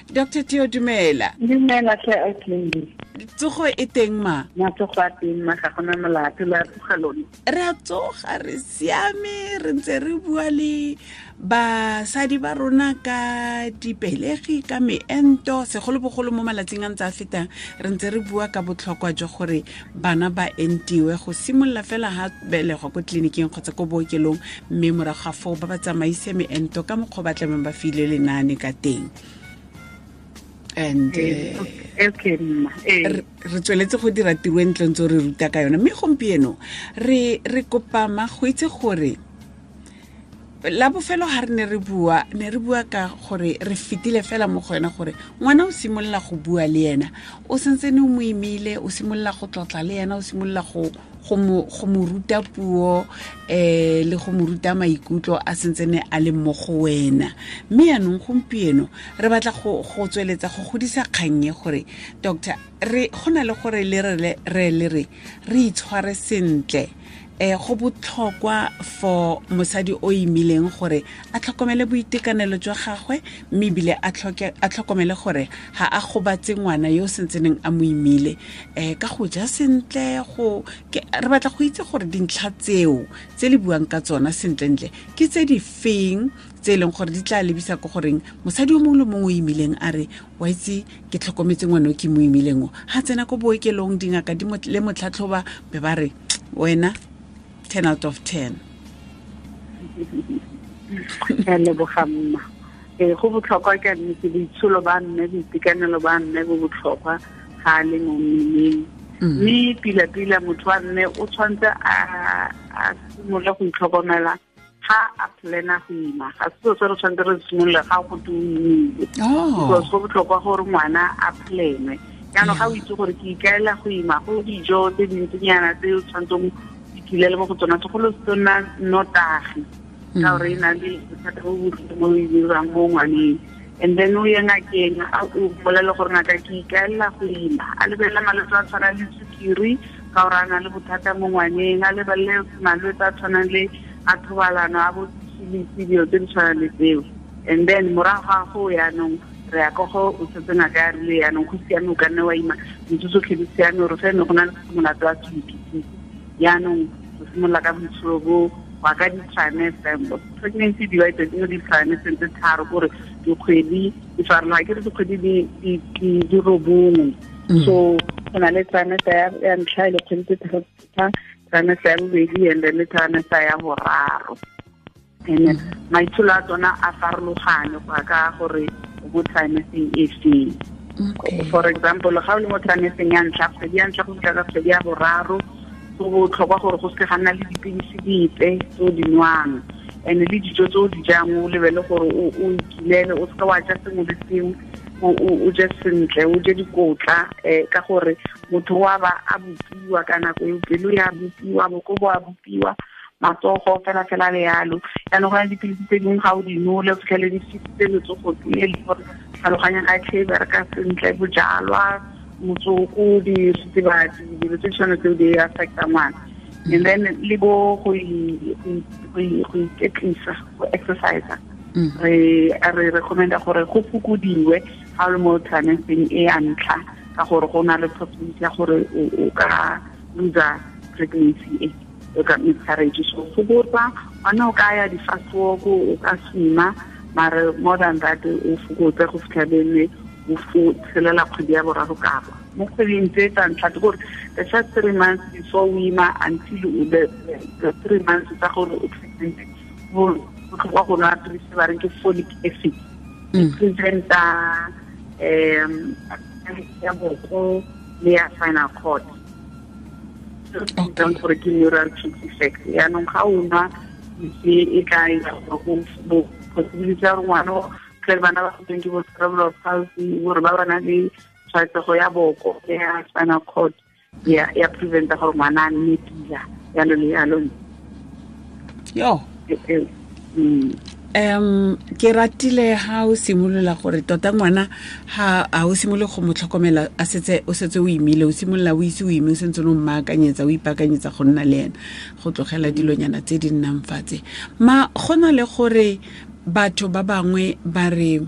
Dr Tio, dumela. Dumela tlhe, Autlindi. Tsogo e teng, ma? Matsogo a teng, ma, ga gona molato. Le a tsoga lone? Re a tsoga, re siame. Re ntse re bua le basadi ba rona ka dipelegi, ka meento, segolobogolo mo malatsing a ntse a fetang. Re ntse re bua ka botlhokwa jwa gore bana ba entiwe go simolola fela ha belegwa ko tleliniking kgotsa ko bookelong, mme morago ga foo ba ba tsamaise meento ka mokgwa ba tlameng ba file lenaane ka teng. And Okay, mma. Re tsweletse go dira tiro e ntle ntse re ruta ka yone. Mme gompieno re kopa ma go itse gore la bofelo ga re ne re bua, ne re bua ka gore re fetile fela mo go yona gore ngwana o simolola go bua le ena o sentse ne o mo imile, o simolola go tlotla le ena, o simolola go mo ruta puo le go mo ruta maikutlo a sentse ne a le mo go wena. Mme yaanong gompieno re batla go tsweletsa go godisa kgannye gore, doctor, re go na le gore le re itshware sentle. Go botlhokwa for mosadi o imileng gore a tlhokomele boitekanelo jwa gagwe, mme ebile a tlhokomele gore ga a gobatse ngwana yo o sentseneng a mo imile ka go ja sentle. Re batla go itse gore dintlha tseo tse le buang ka tsona sentlentle ke tse di feng, tse e leng gore di tla lebisa ko goreng mosadi o mongwe le mongwe o imileng a re, "Wa itse, ke tlhokometse ngwana o ke mo imileng o." Ga tsena ko bookelong, dingaka di le motlhatlhoba be ba re, "Wena, 10 out of 10." Ke a leboga, mma. Ee, go botlhokwa ka nnete. Boitsholo ba mme, boitekanelo ba mme bo botlhokwa ga a le mo mmeleng. Mme pila-pila motho wa mme o tshwanetse a simolola go itlhokomela ga a plana go ima. Ga se selo se re tshwanetse re simolola ga go te o imile, because go botlhokwa gore ngwana a planwe. Jaanong ga o itse gore ke ikaela go ima, go dijo tse dintsinyana tse o tshwanetseng ikilele mo go tsona, segolo se nna nnotagi, ka gore e na le bothata bo botlhoko mo e dirang mo ngwaneng. And then o ye ngakeng, a o bolele gore, "Ngaka, ke ikaelela go ima." A lebelele malwetse a tshwanang le sukiri, ka gore a na le bothata mo ngwaneng. A lebelele malwetse a tshwanang le a thobalano, a bo syphilis, dilo tse di tshwanang le tseo. And then morago ga go yaanong re ya ko go o setse ngaka ya rile yaanong go siame, o ka nne wa ima, dintho tsotlhe di siame, ore fene go na le molato wa se yaanong o simolola ka boitsholo bo wa ka di-trimester. Pregnancy divided mo di-trimester tse tharo, kore dikgwedi di farologana, ke re dikgwedi di 9. So go na le trimester ya ntlha e le kgwedi tse tharo, trimester ya bobedi, and then le trimester ya boraro. And maitsholo a tsona a farologane go ya ka gore o mo trimesteng e feng. For example, ga o le mo trimesteng ya ntlha, kgwedi ya ntlha go fitlha ka kgwedi ya boraro, go botlhokwa gore go seke ga nna le dipilisi dipe tse o di nwang, and le dijo tse o di jang o lebele gore o ikilele, o seke wa ja sengwe le sengwe, o je sentle, o je dikotla, ka gore motho wa ba a bopiwa ka nako eo, pelo ya bopiwa, boko bo a bopiwa, matsogo fela fela le yalo. Jaanong go na le dipilisi tse dingwe ga o di nole, o fitlhele di fisitse letsogo le le gore tlhaloganya ga e tlhe e bereka sentle. Bojalwa, motsoko, diritibatsi, dilo tse di tshwana tseo di affecta ngwana. And then le bo go iketlisa, go exercise, re recommenda gore go fokodiwe ga o le mo trimesteng e ya ntlha, ka gore go na le possibility ya gore o ka lose pregnancy e o ka miscarriage. So fokotsa gone, o ka ya di-fast walk, o ka swima, mare more than that o fokotse go fitlha bene o tshelela kgwedi ya boraro kapa mo kgweding tse tsa ntlha, ke gore the first 3 months before o ima until the 3 months tsa gore o pregnant. Go botlhokwa go nwa pilisi ba reng ke folic acid, e preventa ya boko le ya spinal cord, gore ke neural tube defect. Yaanong ga o nwa pilisi e tla ira gore go possibility ya gore ngwana tle bana ba goteng ke bo cerebral palsy, gore ba ba na le tshwaetsego ya boko le ya spinal cord, ya preventa gore ngwana a nne pila, yalo le yalo. Yo. Ke ratile ha o simolola gore tota ngwana ha a o simolole go mo tlhokomela a setse o setse o imile, o simolola o ise o ime, o sentse o mmaakanyetsa, o ipaakanyetsa go nna le ena, go tlogela dilonyana tse di nnang fatse. Ma go na le gore batho ba bangwe ba re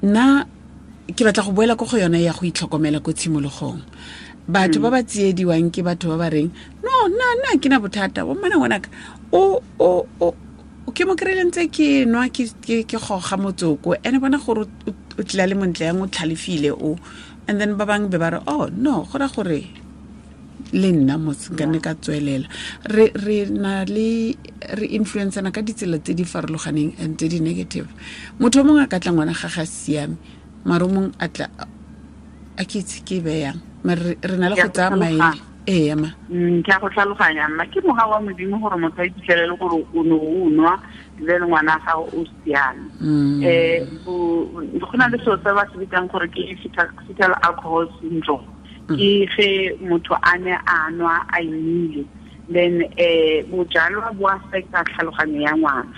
Nna ke batla go boela ko go yone ya go itlhokomela ko tshimologong. Batho ba ba tsiediwang ke batho ba ba reng no nna ke na bothata bo mmana ngwanaka o ke mo kry-ile ntse ke nwa ke goga motsoko ene bona gore o tlila le montle yang o tlhalefile o, and then ba bangwe be ba re oh no go ra gore le nna mos nka nne ka tswelela. Re na le re influencana ka ditsela tse di farologaneng and tse di negative. Motho o mongwe a ka tla ngwana ga ga siame, mare o mongwe a tla a ke itse ke beyang, mare re na le go tsaya maele. Ee ma ke a go tlhaloganya mma, ke moga wa Modimo gore motho a iphitlhelele gore o ne o nwa le ngwana gago o siame. Go na le selo se ba se bitsang gore ke fetal alcohol syndrome. Ke ge motho a ne a nwa a imile, then bojalwa bo affecta tlhaloganyo ya ngwana.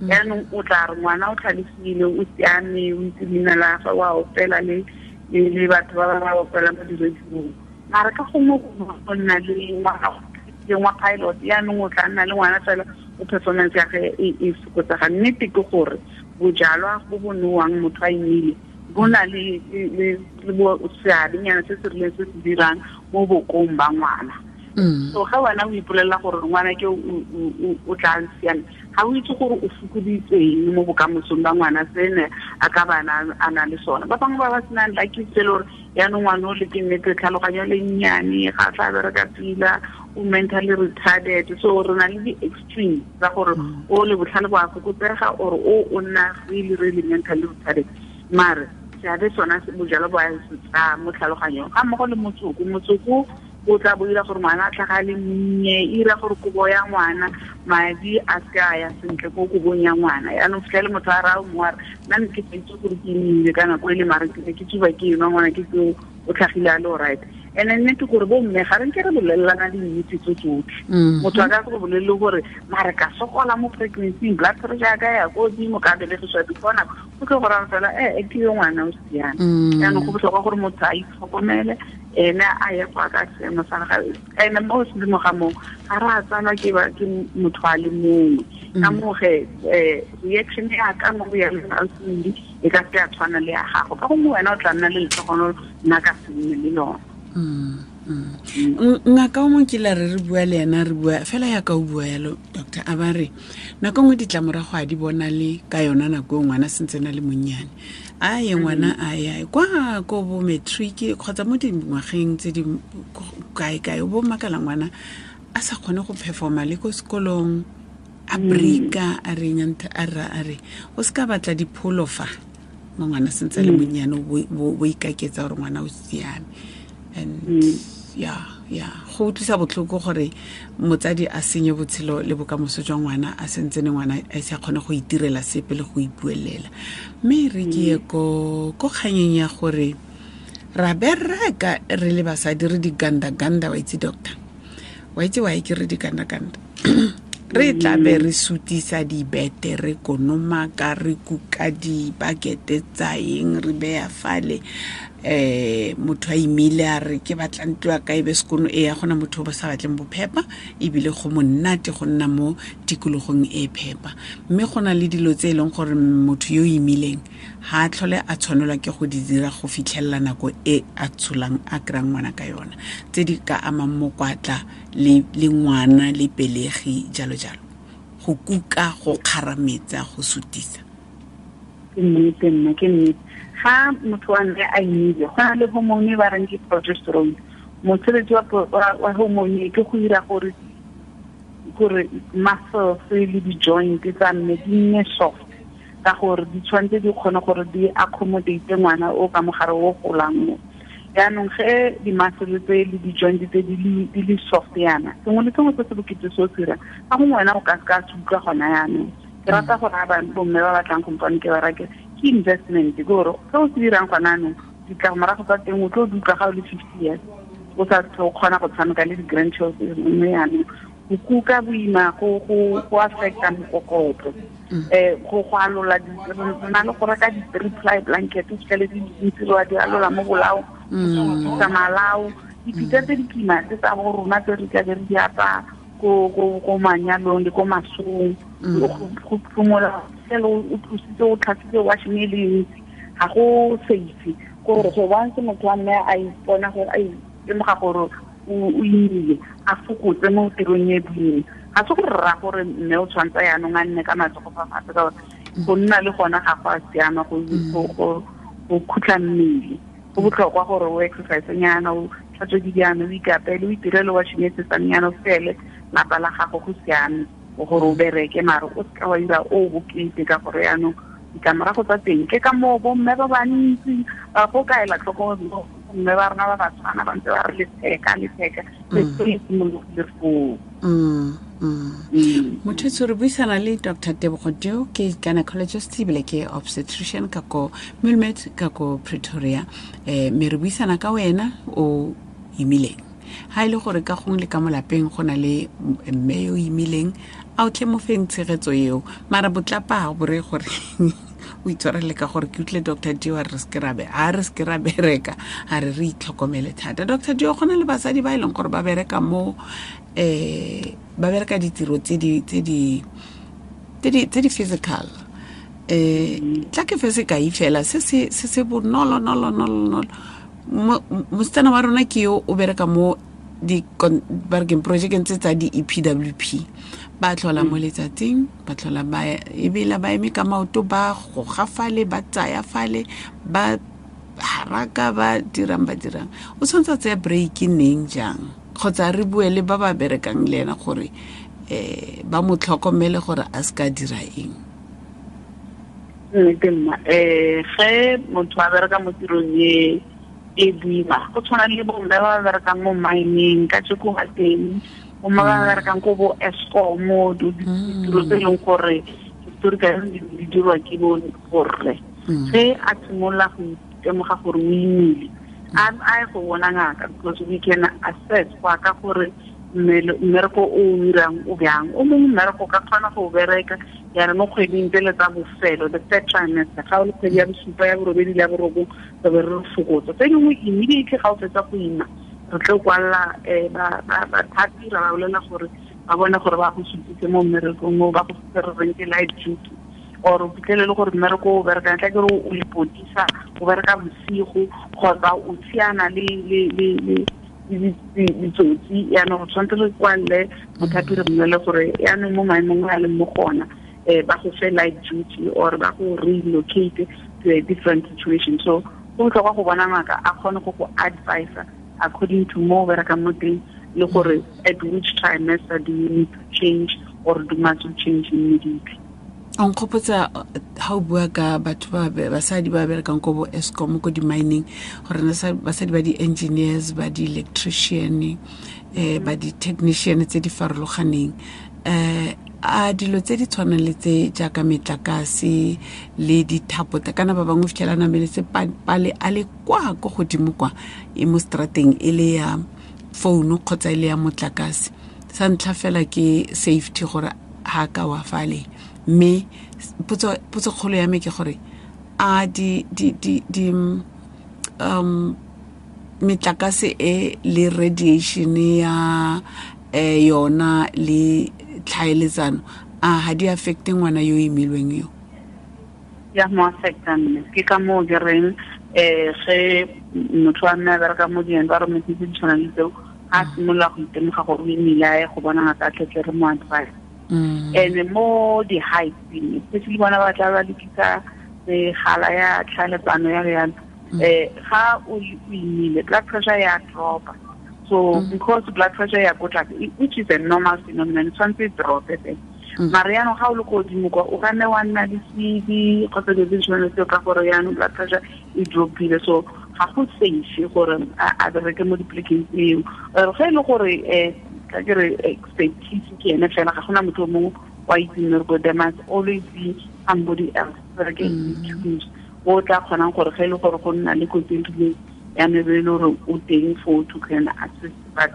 Yaanong o tla re ngwana o tlhalefile, o siame, o itse leina la gagwe, wa opela le batho ba ba opela mo diradiong, mara ka gongwe go nna le ngwana wa pilot, yaanong o tla nna le ngwana fela o performance ya ge e fokotsega. Nnete ke gore bojalwa bo bo nowang motho a imile bo na le seabenyana se se rileng se se dirang mo bokong ba ngwana. So ga wena o ipolelela gore ngwana ke o tla siame, ga o itse gore o fokoditseng mo bokamosong ba ngwana sene a ka bana a na le sona. Ba bangwe ba ba senang lucky se le gore yaanong ngwana o le ke nnete tlhaloganyo le nnyane, ga tla bereka pila, o mentally retarded. So re na le di-extreme tsa gore o le botlhale bo a fokotsega or o nna really really mentally retarded. Mare seabe sona bojalwa bo a se tsaya mo tlhaloganyong ga mmogo le motsoko. Motsoko o tla bo ira gore ngwana a tlhaga le monnye, e ira gore kobo ya ngwana madi a se a ya sentle ko kobong ya ngwana. Yaanong fitlhele motho a raya mongwe a re nna ne ke sa itse gore ke imile ka nako e le, mare ke ne ke tsuba ke enwa ngwana ke tseo o tlhagile a le alright. And nnete gore bo mme ga re nke re bolelelana dinnete tse tsotlhe. Motho a ka se go bolelele gore mare ka sokola mo pregnancy, blood pressure ya ka ya ko godimo, ka belegiswa before nako, o tlo go raya fela ke yo ngwana o siame. Yaanong go botlhokwa gore motho a itlhokomele, ene a ye go ka seemo sa gagwe. Ene mo sedimo ga moo ga re a tsalwa ke motho a le mongwe, ka moo ge reaction ya ka mo go ya le e ka se a tshwana le ya gago, ka gongwe wena o tla nna le letlhogono, nna ka se nne le lona. Ngaka o mongwe kile re bua le ena, re bua fela yaka o bua yalo doctor, a ba re nako nngwe ditlamorago a di bona le ka yona nako e ngwana sentse na le monnyane, a ye ngwana a ya kwa ko bo matric kgotsa mo dingwageng tse di kae-kae, o bo makala ngwana a sa kgone go performa le ko sekolong, a breaka, a re a ra a re o se ka batla dipholo fa mo ngwana sentse le monnyane, bo ikaketsa gore ngwana o siame. And ya go utlwisa botlhoko gore motsadi a senye botshelo le bokamoso jwa ngwana a sentse ne ngwana a se kgone go itirela sepe le go ipuelela. Mme re ke ye ko kganyeng ya gore ra bereka re le basadi re di-ganda-ganda, wa itse doctor, wa itse wa ke re di-ganda-ganda, re tla be re sutisa dibete, re konomaka, re kuka dibakete tsa eng, re beya fale. Motho a imile a re ke batla ntlo ya ka e be sekono, e ya gona motho o ba sa batleng bophepa, ebile go monate go nna mo tikologong e phepa. Mme go na le dilo tse e leng gore motho yo imileng ga a tlhole a tshwanelwa ke go di dira go fitlhelela nako e a tsholang a kry-ang ngwana ka yona, tse di ka amang mokwatla le ngwana le pelegi jalo jalo, go kuka, go kgarametsa, go sutisa. Ke nnete nna, ke nnete. Ga motho wa mme a imile, go na le hormone ba reng ke progesterone. Mosebetsi wa hormone ke go dira gore muscles le di-joint tsa mme di nne soft, ka gore di tshwanetse di kgone gore di accommodate ngwana o ka mogare o golang mo. Yaanong ge di-muscle tse le di-joint tse di le soft yana, sengwe le sengwe se se bokete se o se dirang, ka gongwe wena o ka se ka se utlwa gona yaanong. Ke rata gore ga bomme ba batlang kompane ke ba rake, ke investment, ke gore se o se dirang gona anong ditlamorago tsa teng o tlo di utlwa ga o le 50 years, o sa o kgona go tshameka le di-grandchildren mme yaanong go kuka boima go affecta mokokotlo, go alola, na le go reka di-three ply blanket, o fitlhele di dintsi wa di alola mo bolao, tsa malao, dipitsa tse di kima tse tsa bo rona tse re tlabe re di apaya ko manyalong le ko masong, go phomola fela o tlositse o tlhatswitse washing e le ntsi, Ga go safe gore go once motho wa mme a ipona gore a itemoga gore o imile, a fokotse mo tirong e boima. Ga se gore rra gore mme o tshwanetse yaanong a nne ka matsogo fa fatshe, ka gore go nna le gona ga go a siama, go khutla mmele. Go botlhokwa gore o exercise nyana, o tlhatswe dijana, o ikapele, o itirele washing e sesanyana, o fele lapa la gago, go siame gore o bereke, mare o seka wa ira o bokete, ka gore yaanong ditlamorago tsa teng ke ka moo bomme ba bantsi ba go kaela tlhoko, mme ba rona ba Batswana ba ntse ba re letheka letheka, se simologile foo. Motho re buisana le Dr Tebogo Deo, ke gynecologist ebile ke obstetrician ka ko Muelmed ka ko Pretoria. Mme re buisana ka wena o imileng, ha e le gore ka gongwe le ka mo lapeng go na le mme yo imileng, a o tle mo feng tshegetso eo, mara botlapa ga bore gore o itshwarele, ka gore ke utlwile Dr Dio a re se ke ra a re se ke ra bereka, a re re itlhokomele thata. Dr Dio, go na le basadi ba e leng gore ba bereka mo ba bereka ditiro tse di physical. Tla ke fe sekai fela se se bonolo nolo nolo nolo. Mosetsana wa rona ke yo o bereka mo di ba re keng projekeng tse tsa di-EPWP, ba tlhola mo letsatsing, ba tlhola ba ebela ba eme ka maoto, ba goga fale, ba tsaya fale, ba haraka, ba dirang ba dirang. O tshwanetse a tsaya break neng, jang, kgotsa re bue le ba ba berekang le ena gore ba mo tlhokomele gore a se ka dira eng? Nnete mma, ge motho a bereka mo tirong e e boima, go tshwana le bomme ba ba berekang mo mining ka tšeko ga teng, bomme ba ba berekang ko bo Eskom, ditiro tse e leng gore historically di dirwa ke bo borre, ge a simolola go itemoga gore o imile, a ye go bona ngaka, because we can assess go ya ka gore mmereko o o dirang o bjang. O mongwe mmereko o ka kgona go o bereka yana mo kgweding tsele tsa bofelo, the third trimester, ga o le kgwedi ya bosupa, ya borobedi le ya borobong, re be re fokotsa. Tse dingwe immediately ga o fetsa go ima, re tlo kwalela bathapi, ra ba bolela gore ba bone gore ba go supitse mo mmerekong o, ba go se re reng ke light duty, or o fitlhele le gore mmereko o berekang, tla ke re o lepodisa, o bereka bosigo kgotsa o tshiana le ditsotsi, yaanong go tshwanetse re kwalele mothapi, re mmolele gore yaanong mo maemong a leng mo gona, ba go fe light duty or ba go relocate to a different situation. So go botlhokwa go bona ngaka, a kgone go go advisa according to mo o berekang mo teng, le gore at which trimester do you need to change or do must you change immediately. O nkgopotsa ha o bua ka batho ba basadi ba berekang ko bo Eskom, ko di-mining, gore basadi ba di-engineers, ba di-electrician, ba di-technician tse di farologaneng, a dilo tse di tshwanang le tse jaaka metlakase le dithapo, kana ba bangwe fitlhela nameletse pale a le kwa ko godimo kwa e mo strateng, e le ya founu kgotsa e le ya motlakase. Sa ntlha fela ke safety, gore ha ka wa fale. Mme potso kgolo ya me ke gore a di metlakase e le radiation ya yona le tlhaeletsano, a ha di affecte ngwana yo imilweng yo? Ya mo affecta mme, ke ka moo ke reng ge motho wa mme a bereka mo di-environment tse di tshwanang le tseo, ga a simolola go itemoga gore o imile, a ye go bona ngaka, a tletle re mo advice. And mo di-heights, especially bona ba tla ba lekisa megala ya tlhaeletsano ya yalo, ga o imile, blood pressure ya dropa. So because blood pressure ya ko tlase, which is a normal phenomenon, tshwanetse e drope fela, mare yaanong ga o le ko godimo kwa, o ka nne wa nna le sedi kgotsa dilo tse di tshwanang le tseo, ka gore yaanong blood pressure e dropile. So ga go safe gore a bereke mo dipolekeng tseo. Ge e le gore ka ke re expertise ke ene fela, ga gona motho o mongwe wa itseng mmereko, there must always be somebody else, bereke tools o tla kgonang gore ge e le gore go nna le kotsi e rileng, ya me be e le gore o teng for to can assist. But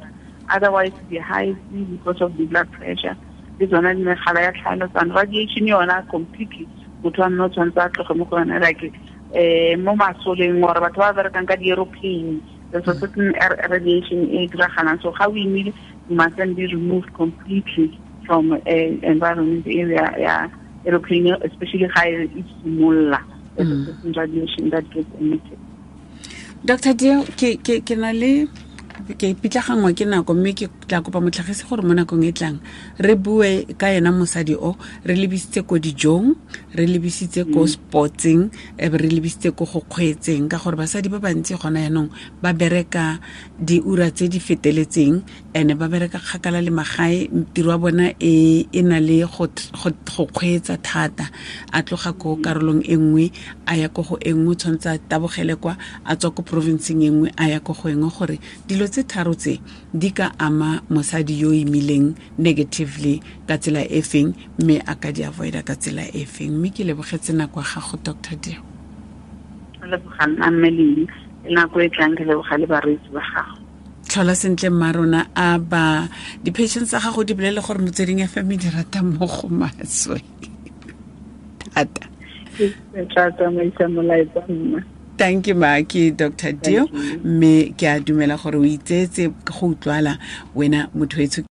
otherwise, the high, because of the blood pressure, le tsona megala ya tlhaeletsano, radiation yona completely, motho wa mme o tshwanetse a tloge mo go yone, like mo masoleng or batho ba berekang ka di-aeroplane, there's a certain radiation e diragalang. So ga o imile, you must then be removed completely from environment area ya aeroplane, especially ga e simolola. There's a certain radiation that gets emitted. Dr. Dio, ke na le ke pitlaganngwa ke nako, mme ke tla kopa motlhagisi gore mo nakong e tlang re bue ka ena mosadi o re lebisitse ko dijong, re lebisitse ko sportseng, e be re lebisitse ko go kgweetseng, ka gore basadi ba bantsi gona yaanong ba bereka diura tse di feteletseng, ene ba bereka kgakala le magae, tiro ya bona e na le go kgweetsa thata, a tloga ko karolong e nngwe a ya ko go e nngwe, tshwanetse a tabogele kwa, a tswa ko provinceng e nngwe a ya ko go e nngwe, gore dilo tse tharo tse di ka ama mosadi yo imileng negatively ka tsela e feng, mme a ka di avoida ka tsela e feng. Mme ke lebogetse nako ya gago, Dr. Dio. Leboga nna mme Leng, nako e tlang ke leboga le bareetsi ba gago. Tlhola sentle mma rona, a ba di-patients tsa gago di bolele gore Motsweding FM di rata mo go maswe thata. Ke tla tsamaisa molaetsa mma. Thank you, ma, ke Dr. Dio, mme ke a dumela gore o itseetse go utlwala wena motho etsho.